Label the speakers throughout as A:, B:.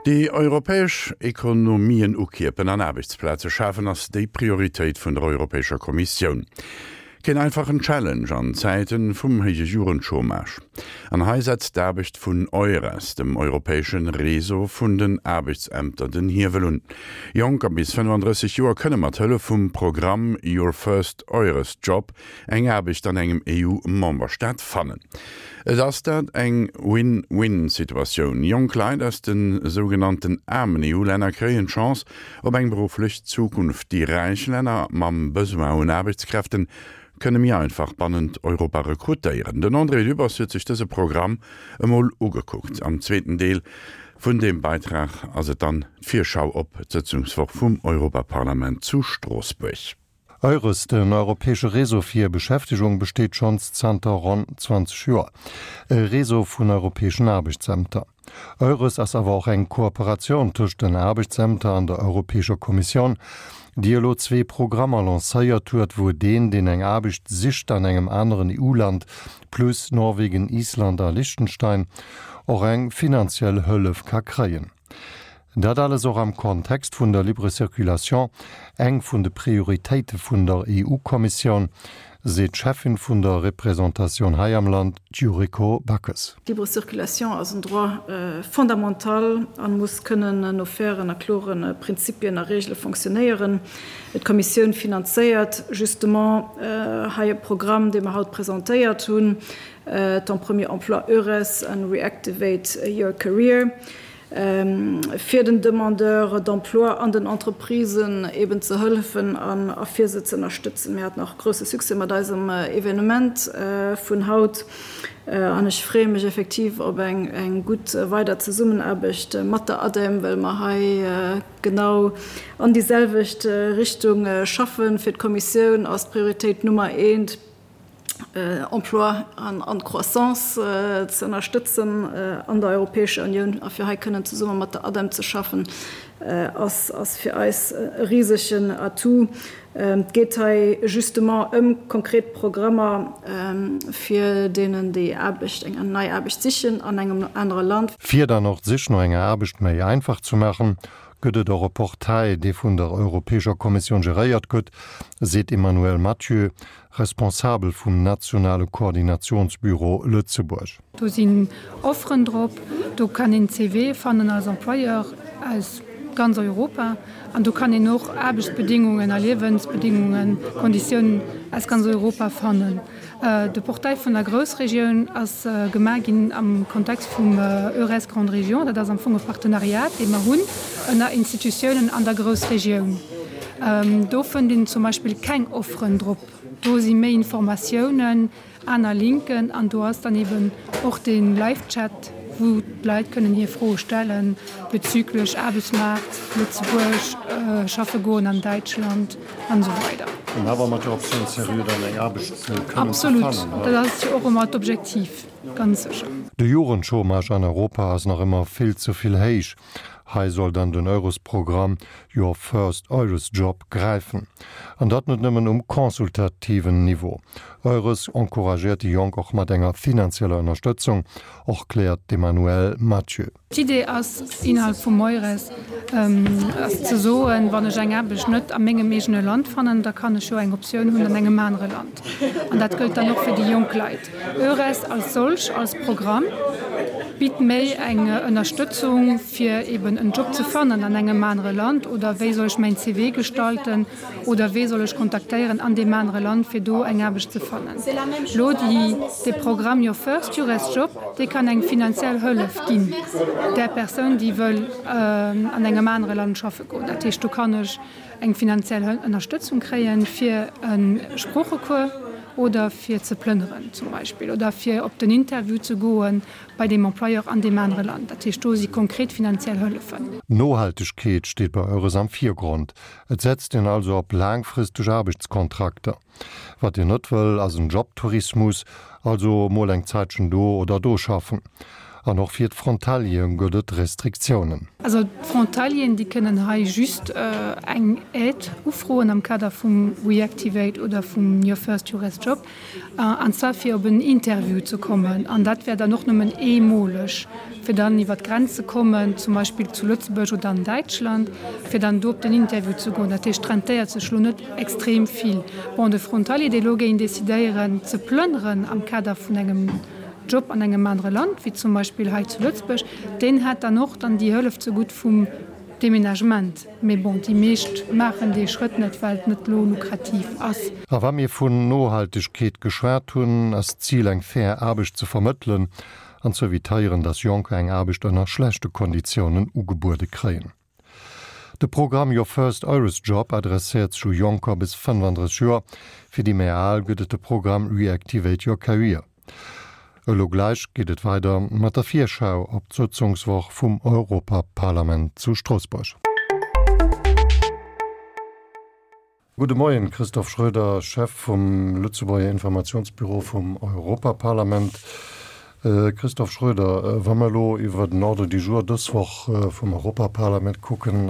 A: Déi europäesch Ekonomien ukierpen an Aarbechtsplaze schafen ass déi Prioritéit vun der Europäescher Kommissioun. Keen einfachen Challenge an Zäiten vum héije Jugendchômage. An hei setzt d'Aarbecht vun EURES, dem europäeschen Réseau vun den Aarbechtsämter, den Hiewel un. Jonker bis 35 Joer kënne mat Hëllef vum Programm Your First EURES Job eng Aarbecht an engem EU-Memberstaat fannen. Et ass dat eng Win-Win-Situatioun, Jonk Leit aus de sougenannten aarmen EU-Länner kréien d'Chance op eng berufflech Zukunft. Déi räich Länner mam Besoin un Aarbechtskräften kënne méi einfach bannent Europa rekrutéieren. Den André Dübbers huet sech dëse Programm emol ugekuckt. Am zweeten Deel vun deem Beitrag ass et dann d'Virschau op d'Sëtzungswoch vum Europaparlament zu Stroossbuerg.
B: EURES, den europäesche Réseau fir Beschäftegung, besteet schonns zanter ronn 20 Joer. E Réseau vun europäeschen Aarbechtsämter. EURES ass awer och eng Kooperatioun tëscht den Aarbechtsämter an der Europäescher Kommissioun, déi elo zwee Programmer lancéiert huet, wou deen, deen eng Aarbecht sicht an engem aneren EU-Land, plus Norwegen, Island a Liechtenstein, och eng finanziell Hëllef ka kréien. Dat alles och am Kontext vun der Libre Circulation, eng vun de Prioritéite vun der EU-Kommissioun, seet d'Cheffin vun der Representatioun hei am Land, d'Yuriko Backes.
C: D'Libre Circulation ass en Droit fondamental a muss kënnen no fairen a klore Prinzipien a Reegele fonctionnéieren. D'Kommissioun finanzéiert justement hei e Programm, dee mer haut presentéiert hunn, Ton premier emploi EURES an Reactivate your career, fir den Demandeurs d'emploi an den Entreprisen eben ze hëllefen a fir se ze ënnerstëtzen. Mir haten och grousse Succès mat eisem Evenement vun haut an ech freeë mech effektiv op eng gutt weider Zesummenaarbecht mat der ADEM, well mer hei genau an déi selwecht Richtung schaffen. Fir d'Kommissioun ass d'Prioritéit Nummer eent, Emploi an d'Croissance ze ënnerstëtzen an der Europäescher Unioun a fir hei kënnen zesumme mat der ADEM ze schaffen, ass fir eis e risegen Atout. Et geet hei justement ëm konkret Programmer fir deenen, déi Aarbecht, eng nei Aarbecht sichen an engem anere Land.
B: Fir dann och d'Sich no enger Aarbecht méi einfach ze maachen, gëtt et och e Portail, dee vun der Europäescher Kommissioun geréiert gëtt, seet d'Emmanuelle Mathieu, Responsabel vum nationale Koordinationsbüro Lëtzebuerg.
D: Do sinn Offeren drop, do kann een CVe fannen als Employeur aus ganz Europa an do kann een och Aarbechtsbedingungen a Liewensbedingungen, Konditiounen aus ganz Europa fannen. De Portail vun der Groussregioun ass gemaach ginn am Kontext vum EURES Grande Région. Dat ass am Fong e Partenariat, dee mer hunn ënner Institutiounen an der Groussregioun. Do fënnt een zum Beispill keng Offeren drop. Do si méi Informatiounen, aner Linken an do ass dann eben och de Live-Chat, wou d'Leit kënnen hir Froe stelle bezüglech Aarbechtsmaart, Lëtzebuerg, schaffe goen an Däitschland an esou weider.
B: An awer mat der Optioun seriö dann eng Aarbecht kënnen ze fannen.
D: Absolut, dat ass jo och ëmmer d'Objektiv, ganz sécher.
B: De Jugendchômage an Europa ass nach ëmmer vill ze vill héich. Hei soll dann den Eurosprogramm Your First Eures Job gräifen. An dat net nëmmen um consultativen Niveau. Eures encouragéiert déi Jonk och mat enger finanzieller Ënnerstëtzung, och kläert d'Emmanuelle Mathieu.
D: D'Idee ass innerhalb vum Eures ass ze soen, wann ech eng Aarbecht net a mengem eegene Land fannen, da kann ech jo eng Optioun hunn an engem anere Land. An dat gëllt dann och fir déi jonk Leit. Eures als solch, als Programm, bitt méi eng Ënnerstëtzung, fir eben en Job ze fannen an engem anere Land oder wéi soll ech mäin CV gestalten oder wee soll ech kontaktéieren an deem anere Land, fir do eng Aarbecht ze fannen. Elo déi, dee Programm Your First Eures Job, dee kann eng finanziell Hëllef ginn där Persoun, déi wëll an engem anere Land schaffe goen. Dat heescht, do kann ech eng finanziell Ënnerstëtzung kréien, fir e Sproochecours oder fir ze plënneren zum Beispill oder fir op den Interview ze goe bei deem Employeur an deem anere Land. Dat heescht, do si konkret finanziell Hëllefen.
B: Nohaltegkeet steet bei Eures am Virgrond. Et setzt een also op laangfristeg Aarbechtskontrakter. Wat een net wëll, ass en Jobtourismus, also mol eng Zäitchen do oder do schaffen. An och fir d'Frontaliere gëtt et Restriktiounen.
D: Also d'Frontalieren, déi kënnen hei just eng Aide ufroen am Kader vum Reactivate oder vum Your First Eures Job, an zwar fir op en Interview ze kommen. An dat wär dann och nëmmen eemoleg. fir dann iwwer d'Grenz ze kommen, zum Beispill zu Lëtzebuerg oder an Däitschland, fir dann do op den Interview ze goen. Dat heescht, et rentéiert sech elo net extrem vill. Bon, de Frontalier, dee elo géing decidéieren ze plënneren am Kader vun engem Job an engem anere Land, wéi zum Beispill hei zu Lëtzebuerg, deen hätt dann och dann déi Hëllef zegutt vum Deménagement. Mee bon, déi meescht maachen dee Schrëtt net, well et net elo lukrativ ass.
B: A wa mir vun Nohaltegkeet geschwat hunn, ass d'Zil eng fair Aarbecht ze vermëttelen an ze evitéieren, dass Jonker eng Aarbecht ënner schlechte Konditiounen ugebuede kréien. De Programm Your First Eures Job adresséiert sech u Jonker bis 35 Joer. Fir déi méi al gëtt et de Programm Reactivate Your Career. Elo gläich geet et weider mat der Virschau op d'Sëtzungswoch vum Europaparlament zu Stroossbuerg. Gudde Moien, Christophe Schroeder, Chef vum Lëtzebuerger Informationsbüro vum Europaparlament. Christophe Schroeder, wa mer elo iwwer den Ordre du jour dës Woch vum Europaparlament kucken,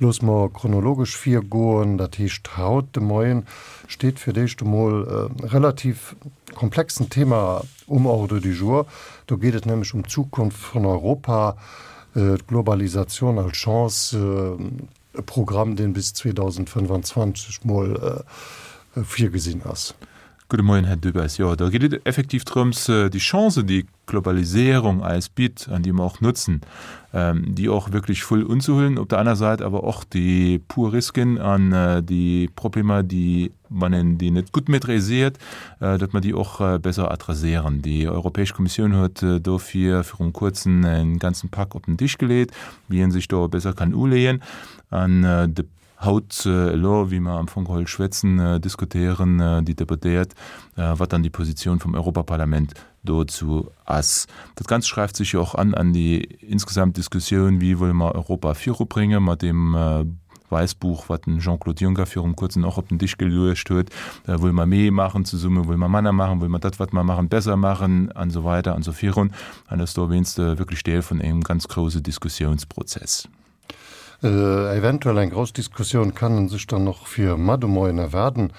B: loosse mer chronologesch virgoen. Dat heescht, haut de Moien steet fir d'éischt emol e relativ komplexen Thema um Ordre du jour. Do geet et nämlech ëm d'Zukunft vun Europa, d'Globalisatioun als Chance, E Programm, deen bis 2025
E: mol virgesinn ass. Gudde Moien, Här Dubes. Jo, do geet et effektiv drëms, déi Chancen, déi d'Globaliséierung eis bitt an déi mer och nutzen, déi och wierklech voll unzehuelen. Op der aner Säit awer och déi puer Risken an déi Problemer, déi, wann een déi net gutt maîtriséiert, datt mer déi och besser adresséieren. Déi Europäesch Kommissioun huet dofir virum Kuerzen e ganzen Pak op den Tisch geleet, wéi ee sech do besser kann uleeën. An de haut elo, wéi mer am Fong geholl schwätzen, diskutéieren déi Deputéiert, wat dann déi Positioun vum Europaparlament dozou ass. Dat Ganzt schreift sech jo och an an déi insgesamt Diskussioun, wéi wëlle mer Europa virubrénge mat deem Wäissbuch, wat den Jean-Claude Juncker virum Kuerzen och op den Tisch geluecht huet. Wëlle mer méi maachen zesumme, wëlle mer manner maachen, wëlle mer dat, wat mer maachen, besser maachen an esou weider an esou virun. An ass dowéinst wierklech Deel vun engem ganz grouse Diskussiounsprozess.
B: Eventuell eng grouss Diskussioun kann en sech dann och fir mar de Moien erwaarden.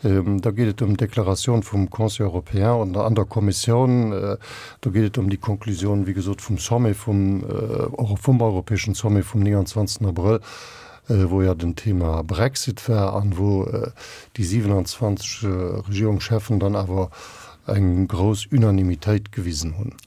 B: Da geet et ëm d'Deklaratioun vum Conseil européen an der Kommissioun. Do geet et ëm déi Konklusioun, wéi gesot, vum Sommet vum, vum europäeschen Sommet vum 29. Abrëll, wou jo den Thema Brexit war an wou déi 27 Regierungscheffen dann awer eng grouss Unanimitéit gewisen hunn.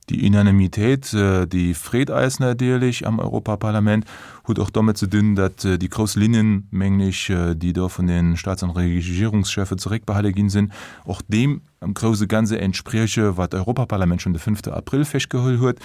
E: Déi Unanimitéit, déi freet eis natierlech am Europaparlament, huet och domat ze dinn, datt déi grouss Linnen, mengen ech, déi do vun de Staats an Regierungscheffe zeréckbehale ginn sinn, och deem am grouse Ganze entsprieche wat d'Europaparlament schonn de fënnfte Abrëll festgeholl huet.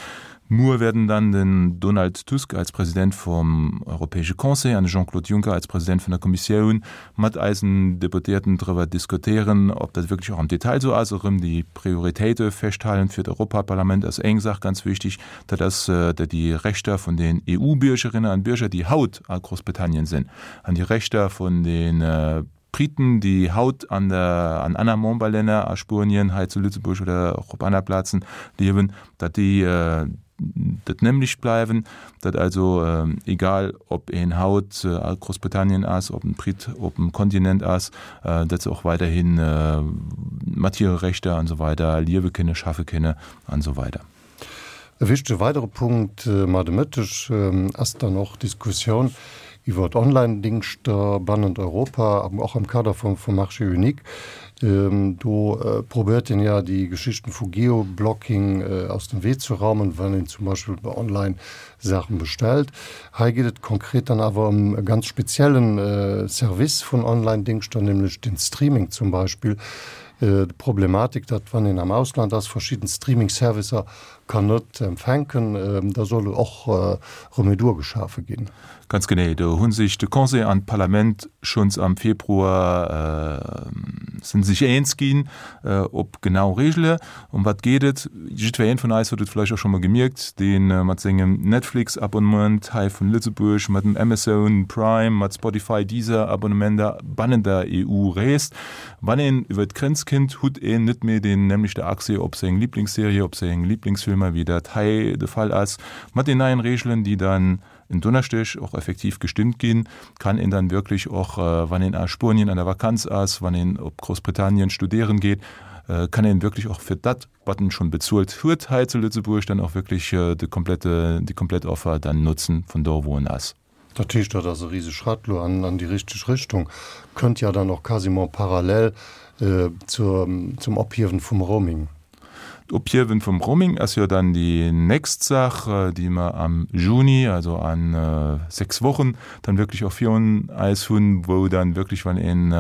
E: Muer werden dann den Donald Tusk als President vum Europäesche Conseil an de Jean-Claude Juncker als President vun der Kommissioun mat eisen Deputéierten driwwer diskutéieren, ob dat wierklech och am Detail esou ass. Erëm déi Prioritéite festhalen fir d'Europaparlament ass eng Saach ganz wichtig, dat ass, datt déi Rechter vun den EU-Bürgerinnen an Bürger, déi haut a Großbritannien sinn, an déi Rechter vun de Briten, déi haut an der, an aner Memberlänner, a Spuenien, hei zu Lëtzebuerg oder och op aner Plazen liewen, datt déi dat nämlecht bleiwen, datt also egal ob een haut a Groussbritannien ass, ob en Brit op dem Kontinent ass, datt se och weiderhi mat hire Rechter an esou weider liewe kënne, schaffe kënne an esou weider.
B: E wichtege weidere Punkt mar de Mëtteg ass dann och d'Diskussioun iwwer Online-Dingschter bannent Europa, och am Kader vum Marché unique. Do probéiert een ja déi Geschichten vu Geoblocking aus dem Wee ze raumen, wann een zum Beispill online Saachen bestellt. Hei geet et konkret dann awer ëm e ganz speziellen Service vun Online-Dingschter, nämlech den Streaming zum Beispill. D'Problematik, datt wann een am Ausland ass, verschidden Streaming-Servicer kann net empfänken, da soll och Remedur geschafe ginn.
E: Ganz genee, do hu sech de Conseil an d'Parlament schonns am Februar si sech eens ginn op genau Regele. Ëm wat geet et? Jiddweree vun eis huet et vläicht och scho mol gemierkt, dee mat sengem Netflix-Abonnement hei vun Lëtzebuerg, mat dem Amazon Prime, mat Spotify, Deezer-Abonnementer bannent der EU reest. Wann een iwwer d'Grenz kinnt, hutt een net méi deen nämlechte Accès op seng Liblingsserie, op seng Liblingsfilmer, wéi dat hei de Fall ass. Mat den neien Reegelen, déi dann en Donneschdeg och effektiv gestëmmt ginn, kann een dann wierklech och, wann een a Spuenien an der Vakanz ass, wann een op Groussbritannien studéieren geet. kann een wierklech och fir dat, wat en schonn bezuelt huet hei zu Lëtzebuerg, dann och wierklech de komplette, déi komplett Offer dann notzen vun do wou en ass.
B: Dat heescht, dat ass e rise Schratt elo an déi richteg Richtung, kënnt ja dann och quasiment parallel zur, zum Ophiewen vum Roaming.
E: D'Ophiewen vum Roaming ass jo dann déi nächst Saach, déi mer am Juni, also a 6 Wochen, dann wierklech och virun eis hunn, wou dann wierklech, wann een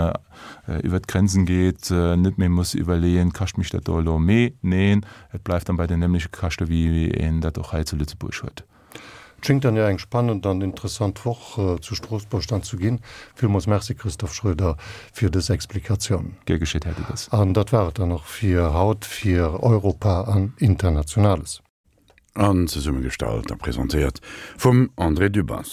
E: iwwert d'Grenzen geet, net méi muss iwwerleeën, Kascht mech dat do elo méi? Neen, et bleift dann bei den nämleche Käschte wéi een dat och hei zu Lëtzebuerg huet.
B: Et schéngt dann jo eng spannend an interessant Woch zu Stroossbuerg dann zu ginn. Villmools Merci Christophe Schroeder fir dës Explikatioun.
E: Gär geschéet, Här Dubes.
B: An dat war et dann och fir haut fir Europa an Internationales.
A: An zesummegestallt a presentéiert vum André Dübbers.